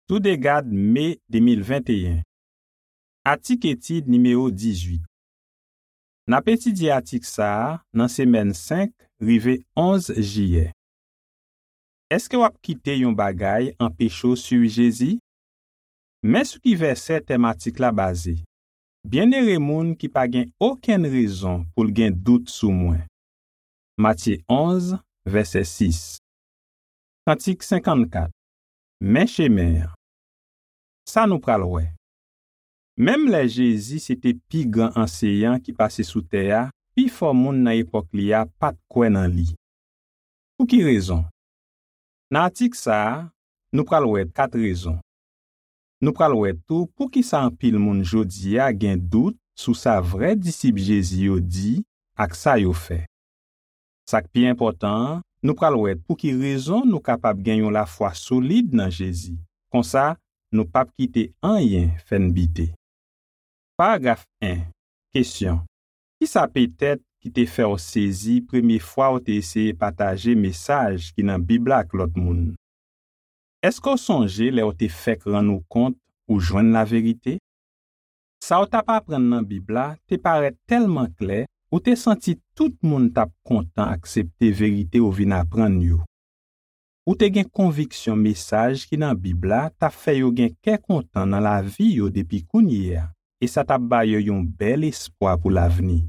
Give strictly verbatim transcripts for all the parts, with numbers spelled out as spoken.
Toudegad, me de mil venteyen. Atik etid nimewo dizuit. N ap etidye atik sa a nan semèn senk rive onz jiyè. Èske w ap kite yon bagay anpeche w swiv Jezi? Men sou ki vèsè tèm atik la baze: "Byennere moun ki pa gen okenn rezon pou l gen dout sou mwen." Matye onz, vèsè sis. Kantik senkannkat. Men chemen an. Sa nou pral wè. Menm lè Jezi se te pi gran anseyan ki pase sou tè a, pifò moun nan epòk li a pa t kwè nan li. Pou ki rezon? Nan atik sa a, nou pral wè kat rezon. Nou pral wè tou poukisa anpil moun jodi a gen dout sou sa vrè disip Jezi yo di ak sa yo fè. Sa k pi enpòtan an, nou pral wè pou ki rezon nou kapab gen yon lafwa solid nan Jezi. Konsa, nou p ap kite anyen fè n bite. Paragraf en. Kesyon: Kisa petèt ki te fè w sezi premye fwa w te eseye pataje mesaj ki nan Bib la ak lòt moun? Èske w sonje lè w te fèk rann ou kont ou jwenn laverite? Sa w t ap aprann nan Bib la te parèt tèlman klè, ou te santi tout moun t ap kontan aksepte verite w vin aprann yo. Ou te gen konviksyon mesaj ki nan Bib la t ap fè yo gen kè kontan nan lavi yo depi kounye a, e sa t ap ba yo yon bèl espwa pou lavni.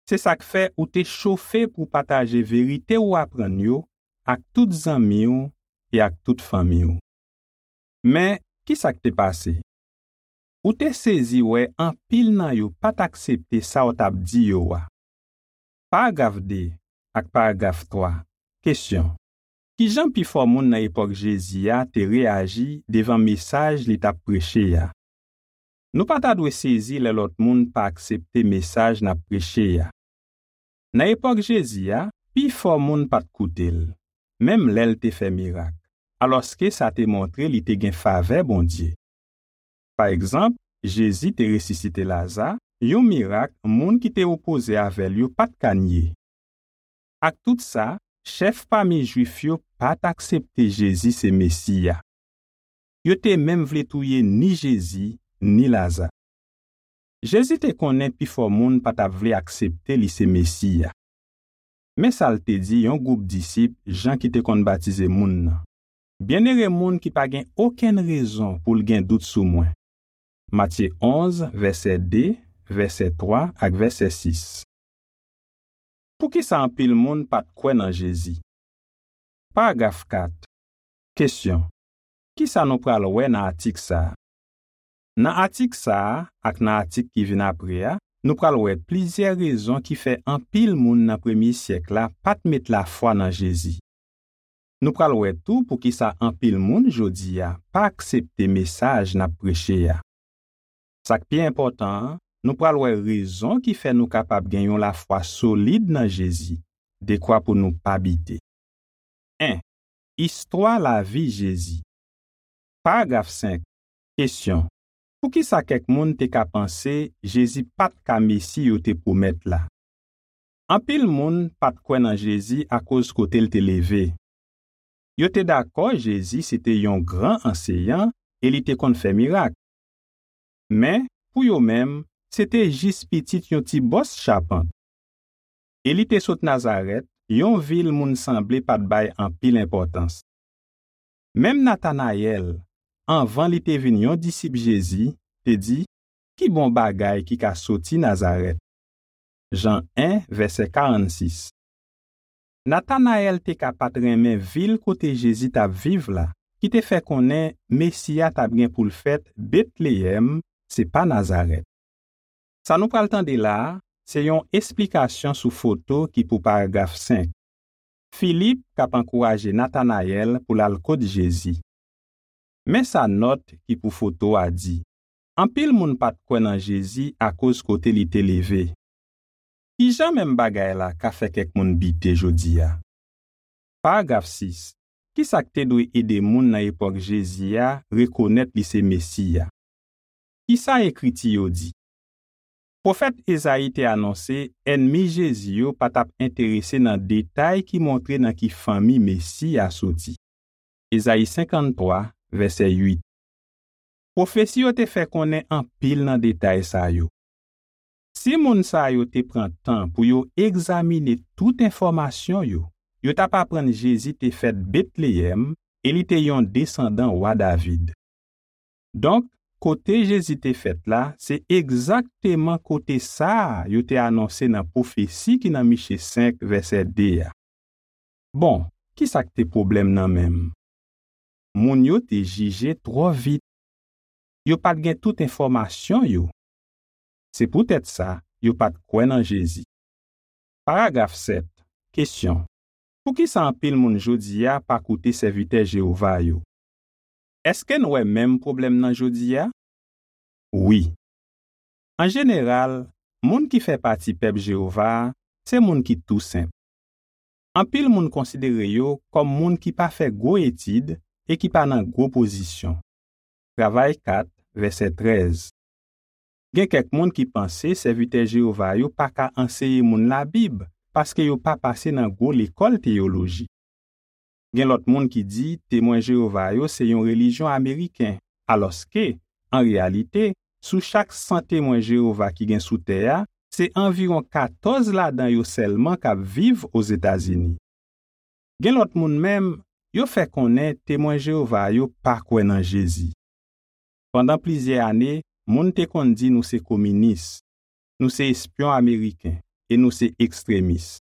Se sa k fè ou te chofe pou w pataje verite w aprann yo ak tout zanmi w e ak tout fanmi w. Men, kisa k te pase? Ou te sezi wè anpil nan yo pa t aksepte sa w t ap di yo a. Paragraf de ak paragraf twa. Kesyon: Ki jan pifò moun nan epòk Jezi a te reyaji devan mesaj li t ap preche a? Nou pa ta dwe sezi lè lòt moun pa aksepte mesaj n ap preche a. Nan epòk Jezi a, pifò moun pa t koute l, menm lè l te fè mirak, alòske sa te montre li te gen favè Bondye. Pa egzanp, Jezi te resisite Laza, yon mirak moun ki te opoze avè l yo pa t ka nye. Ak tout sa, chèf pami Jwif yo pa t aksepte Jezi se Mesi a. Yo te menm vle touye ni Jezi, ni Laza. Jezi te konnen pifò moun pa t ap vle aksepte li se Mesi a. Men sa l te di yon gwoup disip Jan ki te konn batize moun nan: "Byennere moun ki pa gen okenn rezon pou l gen dout sou mwen." Matye onz, vèsè de, vèsè twa ak vèsè sis. Poukisa anpil moun pa t kwè nan Jezi? Paragraf kat. Kesyon: Kisa nou pral wè nan atik sa a? Nan atik sa a ak nan atik ki vin apre a, nou pral wè plizyè rezon ki fè anpil moun nan premye syèk la pa t met lafwa nan Jezi. Nou pral wè tou poukisa anpil moun jodi a pa aksepte mesaj n ap preche a. Sa k pi enpòtan an, nou pral wè rezon ki fè nou kapab gen yon lafwa solid nan Jezi, dekwa pou nou pa bite. En. Istwa lavi Jezi. Paragraf senk. Kesyon: Poukisa kèk moun te ka panse Jezi pa t ka Mesi yo te pwomèt la? Anpil moun pa t kwè nan Jezi akoz kote l te leve. Yo te dakò Jezi se te yon gran anseyan e li te konn fè mirak. Men, pou yo menm, se te jis pitit yon ti bòs chapant. E li te sot Nazarèt, yon vil moun sanble pa t bay anpil enpòtans. Menm Natanayèl, anvan li te vin yon disip Jezi, te di: "Ki bon bagay ki ka soti Nazarèt?" Jan en, vèsè karannsis. Natanayèl te ka pa t renmen vil kote Jezi t ap viv la, ki te fè konnen Mesi a t ap gen pou l fèt Betleyèm, se pa Nazarèt. Sa nou pral tande la a, se yon esplikasyon sou foto ki pou paragraf senk. Filip k ap ankouraje Natanayèl pou l al kot Jezi. Men sa nòt ki pou foto a di: Anpil moun pa t kwè nan Jezi akoz kote li te leve. Ki jan menm bagay la ka fè kèk moun bite jodi a? Paragraf sis. Kisa k te dwe ede moun nan epòk Jezi a rekonèt li se Mesi a? Kisa Ekriti yo di? Pwofèt Ezayi te anonse ènmi Jezi yo pa t ap enterese nan detay ki montre nan ki fanmi Mesi a soti. Ezayi senkanntwa, vèsè uit. Pwofesi yo te fè konnen anpil nan detay sa yo. Si moun sa yo te pran tan pou yo egzamine tout enfòmasyon yo, yo t ap aprann Jezi te fèt Betleyèm e li te yon desandan wa David. Donk, kote Jezi te fèt la, se egzakteman kote sa a yo te anonse nan pwofesi ki nan Miche senk, vèsè de a. Bon, ki sa k te pwoblèm nan menm? Moun yo te jije twò vit. Yo pa t gen tout enfòmasyon yo. Se poutèt sa, yo pa t kwè nan Jezi. Paragraf sèt. Kesyon. Poukisa anpil moun jodi a pa koute sèvitè Jewova yo? Èske n wè menm pwoblèm nan jodi a? Wi. An jeneral, moun ki fè pati pèp Jewova a se moun ki tou senp. Anpil moun konsidere yo kòm moun ki pa fè gwo etid e ki pa nan gwo pozisyon. Travay kat, vèsè trèz. Gen kèk moun ki panse sèvitè Jewova yo pa ka anseye moun Labib paske yo pa pase nan gwo lekòl teyoloji. Gen lòt moun ki di Temwen Jewova yo se yon relijyon ameriken, alòske, an reyalite, sou chak san Temwen Jewova ki gen sou tè a, se anviwon katòz ladan yo sèlman k ap viv Ozetazini. Gen lòt moun menm, yo fè konnen Temwen Jewova yo pa kwè nan Jezi. Pandan plizyè ane, moun te konn di nou se kominis, nou se espyon ameriken e nou se ekstremis.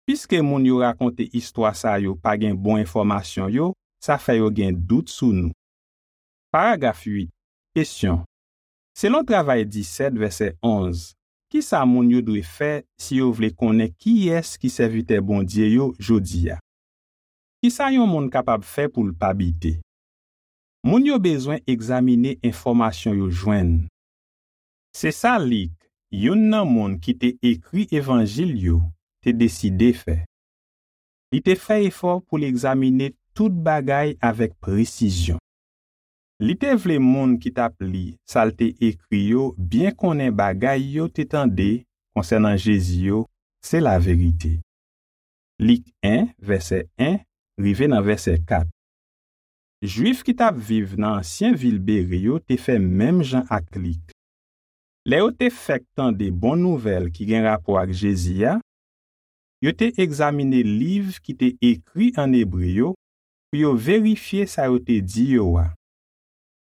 Piske moun yo rakonte istwa sa yo pa gen bon enfòmasyon yo, sa fè yo gen dout sou nou. Paragraf uit. Kesyon. Selon Travay disèt, vèsè onz, ki sa moun yo dwe fè si yo vle konnen kiyès ki sèvitè Bondye yo jodi a? Ki sa yon moun kapab fè pou l pa bite? Moun yo bezwen egzamine enfòmasyon yo jwenn. Se sa Lik, youn nan moun ki te ekri Evanjil yo, te deside fè. Li te fè efò pou l egzamine tout bagay avèk presizyon. Li te vle moun ki t ap li sa l te ekri yo byen konnen bagay yo te tande konsènan Jezi yo se laverite. Lik en, vèsè en rive nan vèsè kat. Jwif ki t ap viv nan ansyen vil Bere yo te fè menm jan ak Lik. Lè yo te fèk tande bon nouvèl ki gen rapò ak Jezi a, yo te egzamine liv ki te ekri ann ebre yo pou yo verifye sa yo te di yo a.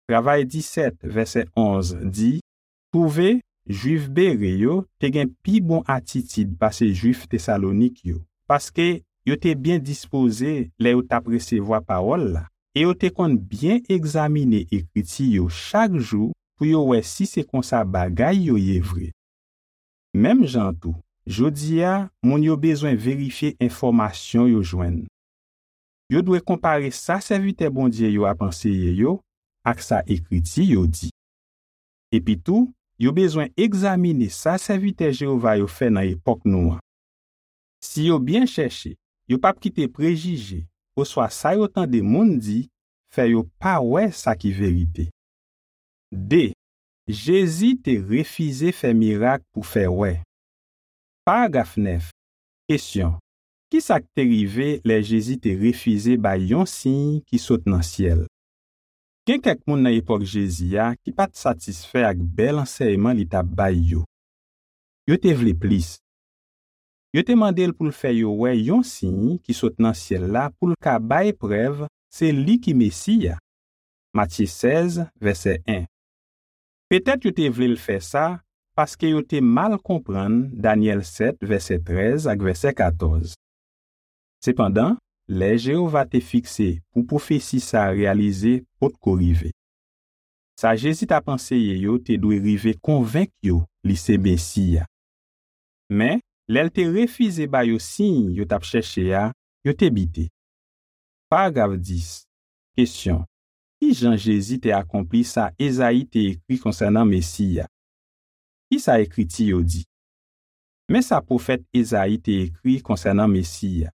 Travay disèt, vèsè onz di, twouve, Jwif Bere yo te gen pi bon atitid pase Jwif Tesalonik yo, paske yo te byen dispoze lè yo t ap resevwa pawòl la, e yo te konn byen egzamine Ekriti yo chak jou pou yo wè si se konsa bagay yo ye vre. Menm jan an tou, jodi a, moun yo bezwen verifye enfòmasyon yo jwenn. Yo dwe konpare sa sèvitè Bondye yo ap anseye yo ak sa Ekriti yo di. Epitou, yo bezwen egzamine sa sèvitè Jewova yo fè nan epòk nou an. Si yo byen chèche, yo p ap kite prejije oswa sa yo tande moun di fè yo pa wè sa ki verite. De. Jezi te refize fè mirak pou fè wè. Paragraf nèf. Kesyon. Ki sa k te rive lè Jezi te refize bay yon siy ki sot nan syèl? Gen kèk moun nan epòk Jezi a ki pa t satisfè ak bèl ansèyman li t ap bay yo. Yo te vle plis. Yo te mande l pou l fè yo wè yon siy ki sot nan syèl la pou l ka bay prèv se li ki Mesi a. Matye sèz, vèsè en. Petèt yo te vle l fè sa paske yo te mal konprann Danyèl sèt, vèsè trèz ak vèsè katòz. Sepandan, lè Jewova te fikse pou pwofesi sa a reyalize potko rive. Sa Jezi t ap anseye yo te dwe rive konvenk yo li se Mesi a. Men, lè l te refize ba yo siy yo t ap chèche a, yo te bite. Paragraf dis. Kesyon. Ki jan Jezi te akonpli sa Ezayi te ekri konsènan Mesi a? Ki sa Ekriti yo di? Men sa pwofèt Ezayi te ekri konsènan Mesi a: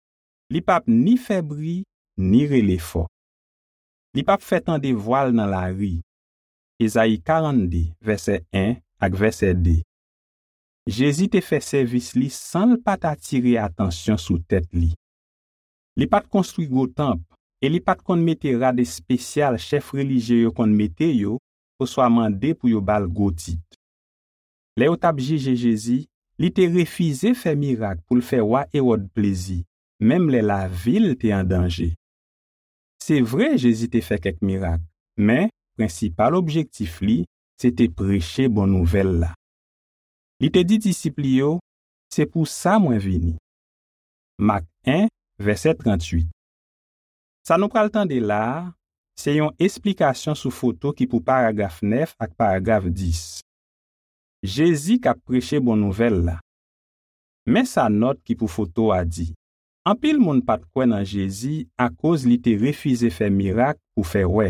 Li p ap ni fè bri, ni rele fò. Li p ap fè tande vwa l nan lari. Ezayi karannde, vèsè en ak vèsè de. Jezi te fè sèvis li san l pa t atire atansyon sou tèt li. Li pa t konstwi gwo tanp e li pa t konn mete rad espesyal chèf relijye yo konn mete yo oswa mande pou yo ba l gwo tit. Lè yo t ap jije Jezi, li te refize fè mirak pou l fè wa Ewòd plezi, menm lè lavi l te an danje. Se vre, Jezi te fè kèk mirak, men prensipal objektif li se te preche bon nouvèl la. Li te di disip li yo, "Se pou sa mwen vini." Mak en, vèsè tranntuit. Sa nou pral tande la a, se yon esplikasyon sou foto ki pou paragraf nèf ak paragraf dis. Jezi k ap preche bon nouvèl la. Men sa nòt ki pou foto a di. Anpil moun pa t kwè nan Jezi akoz li te refize fè mirak pou fè wè.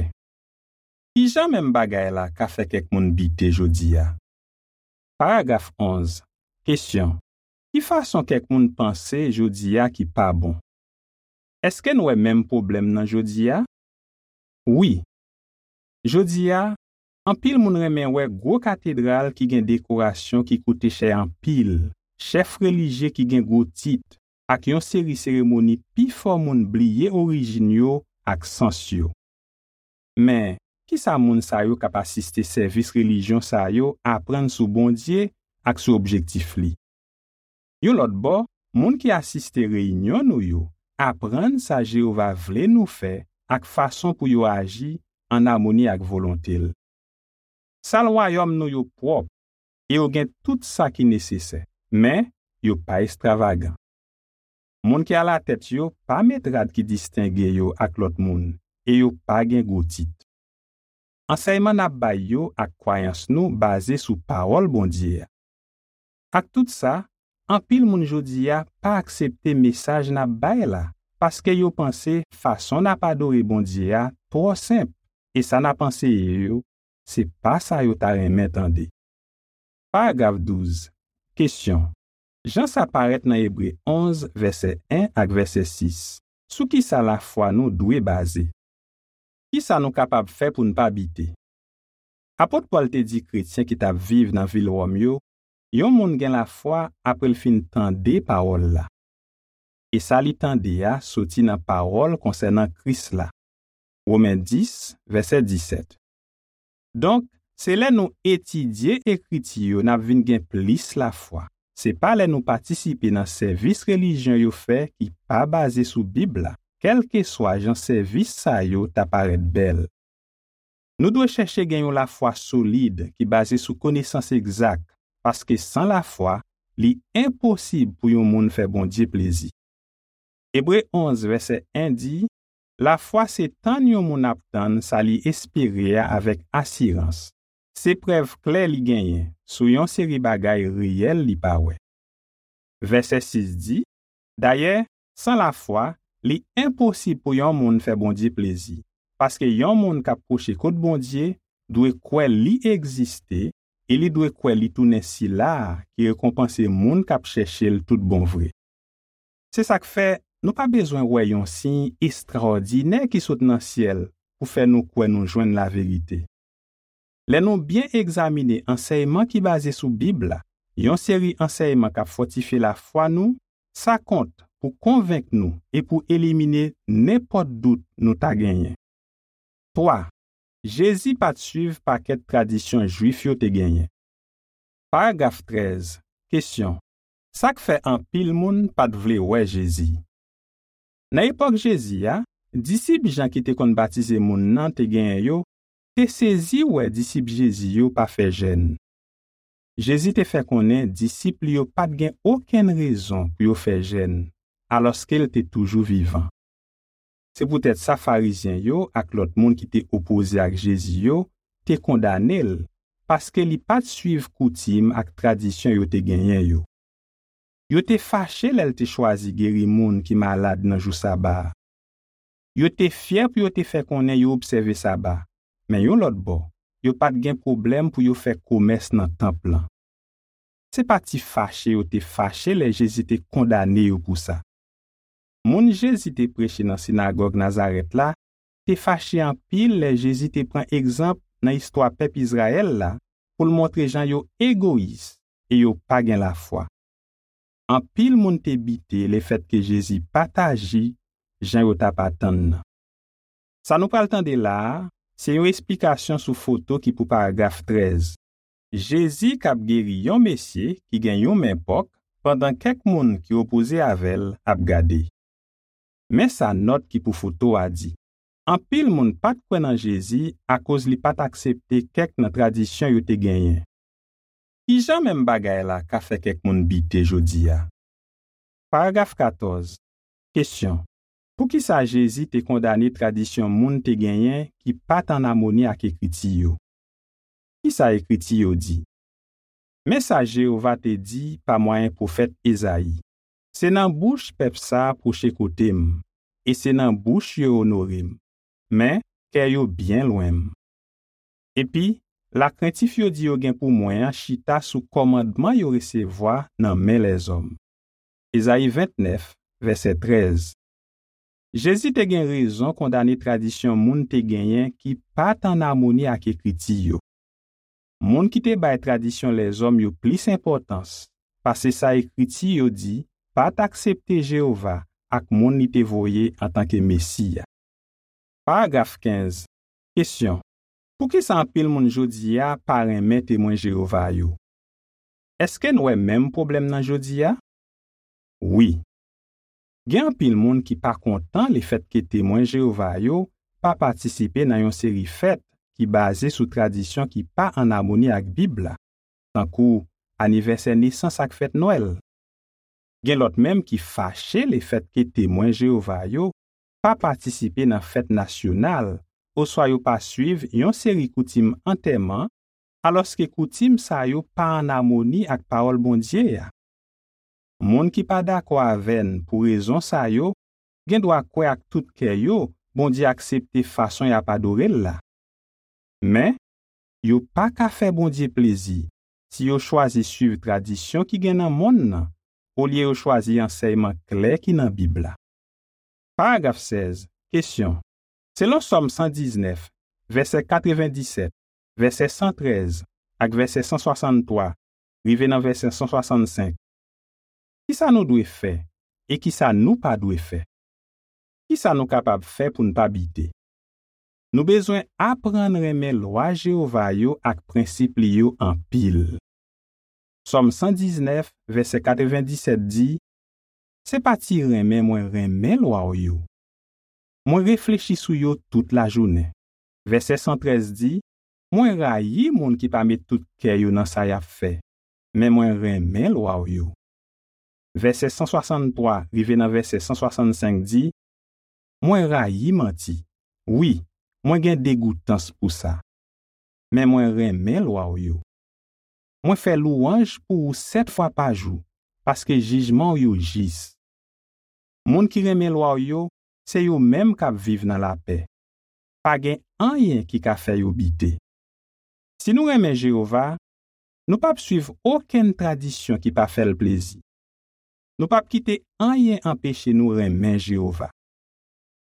Ki jan menm bagay la ka fè kèk moun bite jodi a? Paragraf onz. Kesyon. Ki fason kèk moun panse jodi a ki pa bon? Èske n wè menm pwoblèm nan jodi a? Wi. Jodi a, anpil moun renmen wè gwo katedral ki gen dekorasyon ki koute chè anpil, chèf relijye ki gen gwo tit, ak yon seri seremoni pifò moun bliye orijin yo ak sans yo. Men, ki sa moun sa yo k ap asiste sèvis relijyon sa yo aprann sou Bondye ak sou objektif li? Yon lòt bò, moun ki asiste reyinyon nou yo aprann sa Jewova vle nou fè ak fason pou yo aji ann amoni ak volonte l. Sal wayòm nou yo pwòp e yo gen tout sa ki nesesè, men yo pa estwavagan. Moun ki alatèt yo pa met rad ki distenge yo ak lòt moun e yo pa gen gwo tit. Ansèyman n ap bay yo ak kwayans nou baze sou Pawòl Bondye a. Ak tout sa, anpil moun jodi a pa aksepte mesaj n ap bay la, paske yo panse fason n ap adore Bondye a twò senp, e sa n ap anseye yo, se pa sa yo ta renmen tande. Paragraf douz. Kesyon. Jan sa parèt nan Ebre onz, vèsè en ak vèsè sis, sou ki sa lafwa nou dwe baze? Ki sa nou kapab fè pou n pa bite? Apot Pòl te di kretyen ki t ap viv nan vil Wòm yo, yon moun gen lafwa apre l fin tande pawòl la. E sa li tande a soti nan pawòl konsènan Kris la. Women dis, vèsè disèt. Donk, se lè nou etidye Ekriti yo n ap vin gen plis lafwa. Se pa lè nou patisipe nan sèvis relijyon yo fè ki pa baze sou Bib la, kèlkeswa jan sèvis sa yo ta parèt bèl. Nou dwe chèche gen yon lafwa solid ki baze sou konesans egzak, paske san lafwa, li enposib pou yon moun fè Bondye plezi. Ebre onz, vèsè en di, lafwa se tann yon moun ap tann sa li espere a avèk asirans. Se prèv klè li genyen sou yon seri bagay reyèl li pa wè. Vèsè sis di, dayè, san lafwa, li enposib pou yon moun fè Bondye plezi, paske yon moun k ap pwoche kot Bondye dwe kwè li egziste e li dwe kwè li tounen Sila a ki rekonpanse moun k ap chèche l tout bon vre. Se sa k fè, nou pa bezwen wè yon siy estrawòdinè ki sot nan syèl pou fè nou kwè nou jwenn laverite. Lè nou byen egzamine ansèyman ki baze sou Bib la, yon seri ansèyman k ap fòtifye lafwa nou, sa kont pou konvenk nou e pou elimine nenpòt dout nou ta genyen. Twa, Jezi pa t suiv pakèt tradisyon Jwif yo te genyen. Paragraf trèz. Kesyon. Sa k fè anpil moun pa t vle wè Jezi? Nan epòk Jezi a, disip Jan ki te konn batize moun nan te genyen yo te sezi wè disip Jezi yo pa fè jèn. Jezi te fè konnen disip li yo pa t gen okenn rezon pou yo fè jèn, alòske l te toujou vivan. Se poutèt sa Farizyen yo ak lòt moun ki te opoze ak Jezi yo te kondane l, paske li pa t suiv koutim ak tradisyon yo te genyen yo. Yo te fache lè l te chwazi geri moun ki malad nan jou Saba a. Yo te fyè pou yo te fè konnen yo obsève Saba, men yon lòt bò, yo pa t gen pwoblèm pou yo fè komès nan tanp lan. Se pa ti fache yo te fache lè Jezi te kondane yo pou sa. Moun Jezi te preche nan sinagòg Nazarèt la te fache anpil lè Jezi te pran egzanp nan istwa pèp Izrayèl la pou l montre jan yo egoyis e yo pa gen lafwa. Anpil moun te bite lefètke Jezi pa t aji jan yo t ap atann nan. Sa nou pral tande la a, se yon esplikasyon sou foto ki pou paragraf trèz. Jezi k ap geri yon mesye ki gen yon men pòk, pandan kèk moun ki opoze avè l ap gade. Men sa nòt ki pou foto a di. Anpil moun pa t kwè nan Jezi akoz li pa t aksepte kèk nan tradisyon yo te genyen. Ki jan menm bagay la ka fè kèk moun bite jodi a? Paragraf katòz. Kesyon. Poukisa Jezi te kondane tradisyon moun te genyen ki pa t ann amoni ak Ekriti yo? Ki sa Ekriti yo di? Men sa Jewova te di pa mwayen pwofèt Ezayi: Se nan bouch pèp sa a pwoche kote m, e se nan bouch yo onore m, men kè yo byen lwen m. Epi, lakrentif yo di yo gen pou mwen an chita sou kòmandman yo resevwa nan men lèzòm. Ezayi vennèf, vèsè trèz. Jezi te gen rezon kondane tradisyon moun te genyen ki pa t ann amoni ak Ekriti yo. Moun ki te bay tradisyon lèzòm yo plis enpòtans pase sa Ekriti yo di pa t aksepte Jewova ak moun li te voye antanke Mesi a. Paragraf kenz. Kesyon. Poukisa anpil moun jodi a pa renmen Temwen Jewova yo? Èske n wè menm pwoblèm nan jodi a? Wi. Gen anpil moun ki pa kontan lefètke Temwen Jewova yo pa patisipe nan yon seri fèt ki baze sou tradisyon ki pa ann amoni ak Bib la, tankou anivèsè nesans ak fèt Nwèl. Gen lòt menm ki fache lefètke Temwen Jewova yo pa patisipe nan fèt nasyonal oswa yo pa suiv yon seri koutim antèman, alòske koutim sa yo pa ann amoni ak Pawòl Bondye a. Moun ki pa dakò avè n pou rezon sa yo gen dwa kwè ak tout kè yo Bondye aksepte fason y ap adore l la. Men, yo pa ka fè Bondye plezi si yo chwazi suiv tradisyon ki gen nan monn nan olye yo chwazi ansèyman klè ki nan Bib la. Paragraf sèz. Kesyon. Selon Sòm san diznèf, vèsè katrevenndisèt, vèsè san trèz ak vèsè san swasanntwa, rive nan vèsè san swasannsenk, kisa nou dwe fè e kisa nou pa dwe fè? Kisa nou kapab fè pou n pa bite? Nou bezwen aprann renmen lwa Jewova yo ak prensip li yo anpil. Sòm san diznèf, vèsè katrevenndisèt di, Se pa ti renmen mwen renmen lwa w yo. Mwen reflechi sou yo tout lajounen. Vèsè san trèz di, Mwen rayi moun ki pa met tout kè yo nan sa y ap fè, men mwen renmen lwa w yo. Vèsè san swasanntwa rive nan vèsè san swasannsenk di, Mwen rayi manti. Wi, mwen gen degoutans pou sa. Men mwen renmen lwa w yo. Mwen fè lwanj pou ou sèt fwa pa jou, paske jijman w yo jis. Moun ki renmen lwa w yo, se yo menm k ap viv nan lapè. Pa gen anyen ki ka fè yo bite. Si nou renmen Jewova, nou p ap suiv okenn tradisyon ki pa fè l plezi. Nou p ap kite anyen anpeche nou renmen Jewova.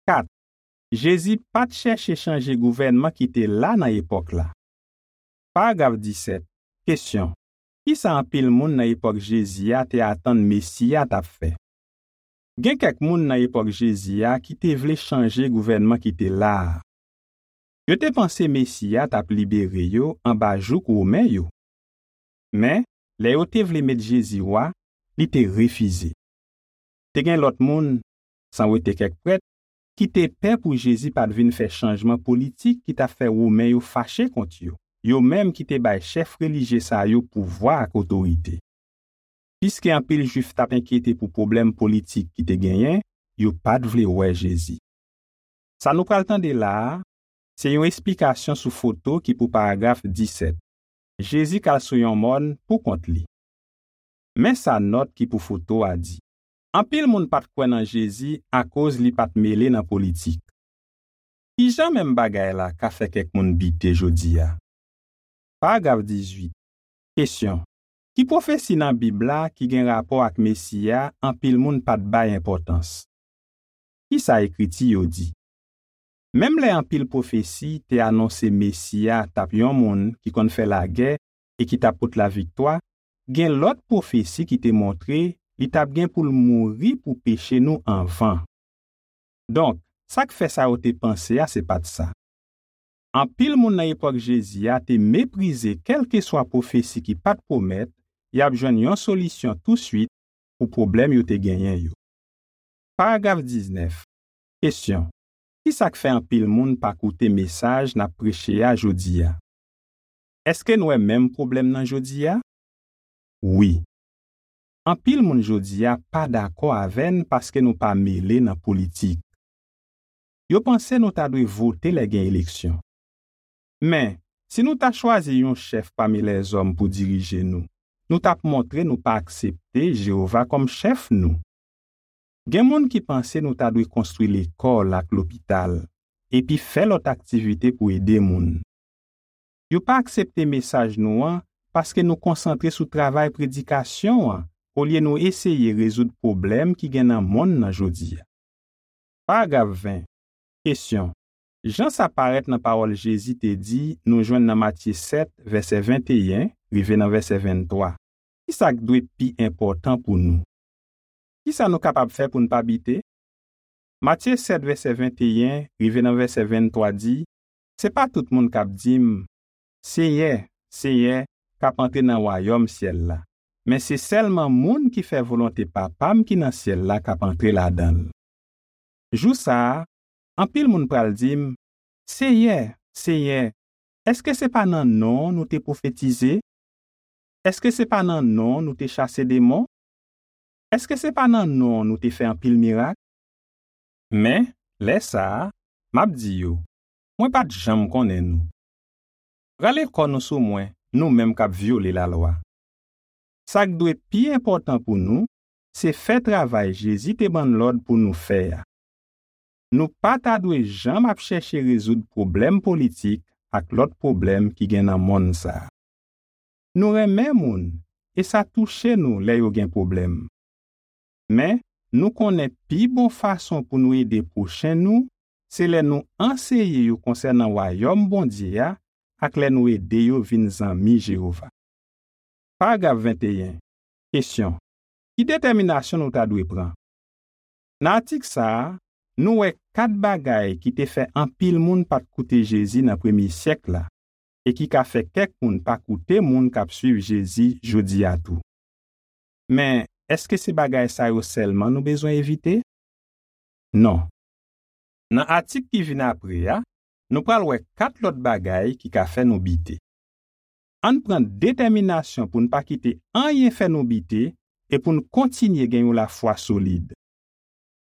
Kat. Jezi pa t chèche chanje gouvènman ki te la nan epòk la. Paragraf disèt. Kesyon. Kisa anpil moun nan epòk Jezi a te atann Mesi a t ap fè? Gen kèk moun nan epòk Jezi a ki te vle chanje gouvènman ki te la a. Yo te panse Mesi a t ap libere yo anba jouk Women yo. Men, lè yo te vle met Jezi wa, li te refize. Te gen lòt moun, san wete kèk prèt, ki te pè pou Jezi pa t vin fè chanjman politik ki t ap fè Women yo fache kont yo, yo menm ki te bay chèf relijye sa yo pouvwa ak otorite. Piske anpil Jwif t ap enkyete pou pwoblèm politik ki te genyen, yo pa t vle wè Jezi. Sa nou pral tande la a, se yon esplikasyon sou foto ki pou paragraf disèt. Jezi k al sou yon mòn poukont li. Men sa nòt ki pou foto a di. Anpil moun pa t kwè nan Jezi akoz li pa t mele nan politik. Ki jan menm bagay la ka fè kèk moun bite jodi a? Paragraf dizuit. Kesyon. Ki pwofesi nan Bib la ki gen rapò ak Mesi a anpil moun pa t bay enpòtans? Ki sa Ekriti yo di? Menm lè anpil pwofesi te anonse Mesi a t ap yon moun ki konn fè lagè e ki t ap pot laviktwa, gen lòt pwofesi ki te montre li t ap gen pou l mouri pou peche nou anvan. Donk, Sa k fè sa yo te panse a se pa t sa. Anpil moun nan epòk Jezi a te meprize kèlkeswa pwofesi ki pa t pwomèt y ap jwenn yon solisyon touswit pou pwoblèm yo te genyen yo. Paragraf diznèf. Kesyon: ki sa k fè anpil moun pa koute mesaj n ap preche a jodi a? Èske n wè menm pwoblèm nan jodi a? Wi. Anpil moun jodi a pa dakò avè n paske nou pa mele nan politik. Yo panse nou ta dwe vote lè gen eleksyon. Men, si nou ta chwazi yon chèf pami lèzòm pou dirije nou, nou t ap montre nou pa aksepte Jewova kòm chèf nou. Gen moun ki panse nou ta dwe konstwi lekòl ak lopital, epi fè lòt aktivite pou ede moun. Yo pa aksepte mesaj nou an paske nou konsantre sou travay predikasyon an olye nou eseye rezoud pwoblèm ki gen nan monn nan jodi a. Paragraf ven. Kesyon: jan sa parèt nan pawòl Jezi te di nou jwenn nan Matye sèt, vèsè venteyen rive nan vèsè venntwa, ki sa k dwe pi enpòtan pou nou? Ki sa nou kapab fè pou n pa bite? Matye sèt, vèsè venteyen rive nan vèsè venntwa di: se pa tout moun k ap di m, Senyè, Senyè, k ap antre nan wayòm syèl la, men se sèlman moun ki fè volonte Papa m ki nan syèl la k ap antre ladan l. Jou sa a, anpil moun pral di m, Senyè, Senyè, èske se pa nan non w nou te pwofetize? Èske se pa nan non w nou te chase demon? Èske se pa nan non w nou te fè anpil mirak? Men, lè sa a, m ap di yo, mwen pa t janm konnen nou. Rale kò nou sou mwen, nou menm k ap vyole lalwa. Sa k dwe pi enpòtan pou nou, se fè travay Jezi te ban n lòd pou nou fè a. Nou pa ta dwe janm ap chèche rezoud pwoblèm politik ak lòt pwoblèm ki gen nan monn sa a. Nou renmen moun, e sa touche nou lè yo gen pwoblèm. Men, nou konnen pi bon fason pou nou ede pwochen nou, se lè nou anseye yo konsènan Wayòm Bondye a ak lè nou ede yo vin zanmi Jewova. Paragraf venteyen. Kesyon: ki detèminasyon nou ta dwe pran? Nan atik sa a, nou wè kat bagay ki te fè anpil moun pa t koute Jezi nan premye syèk la e ki ka fè kèk moun pa koute moun k ap suiv Jezi jodi a tou. Men, èske se bagay sa yo sèlman nou bezwen evite? Non. Nan atik ki vin apre a, nou pral wè kat lòt bagay ki ka fè nou bite. Ann pran detèminasyon pou n pa kite anyen fè nou bite e pou n kontinye gen yon lafwa solid.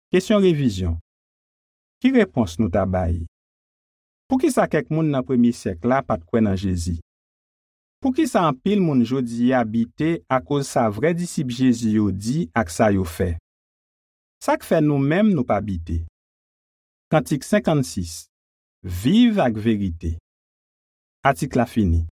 Kesyon revizyon. Ki repons nou ta bay? Poukisa kèk moun nan premye syèk la pa t kwè nan Jezi? Poukisa anpil moun jodi a bite akoz sa vrè disip Jezi yo di ak sa yo fè? Sa k fè nou menm nou pa bite? Kantik senkannsis. Viv ak verite. Atik la fini.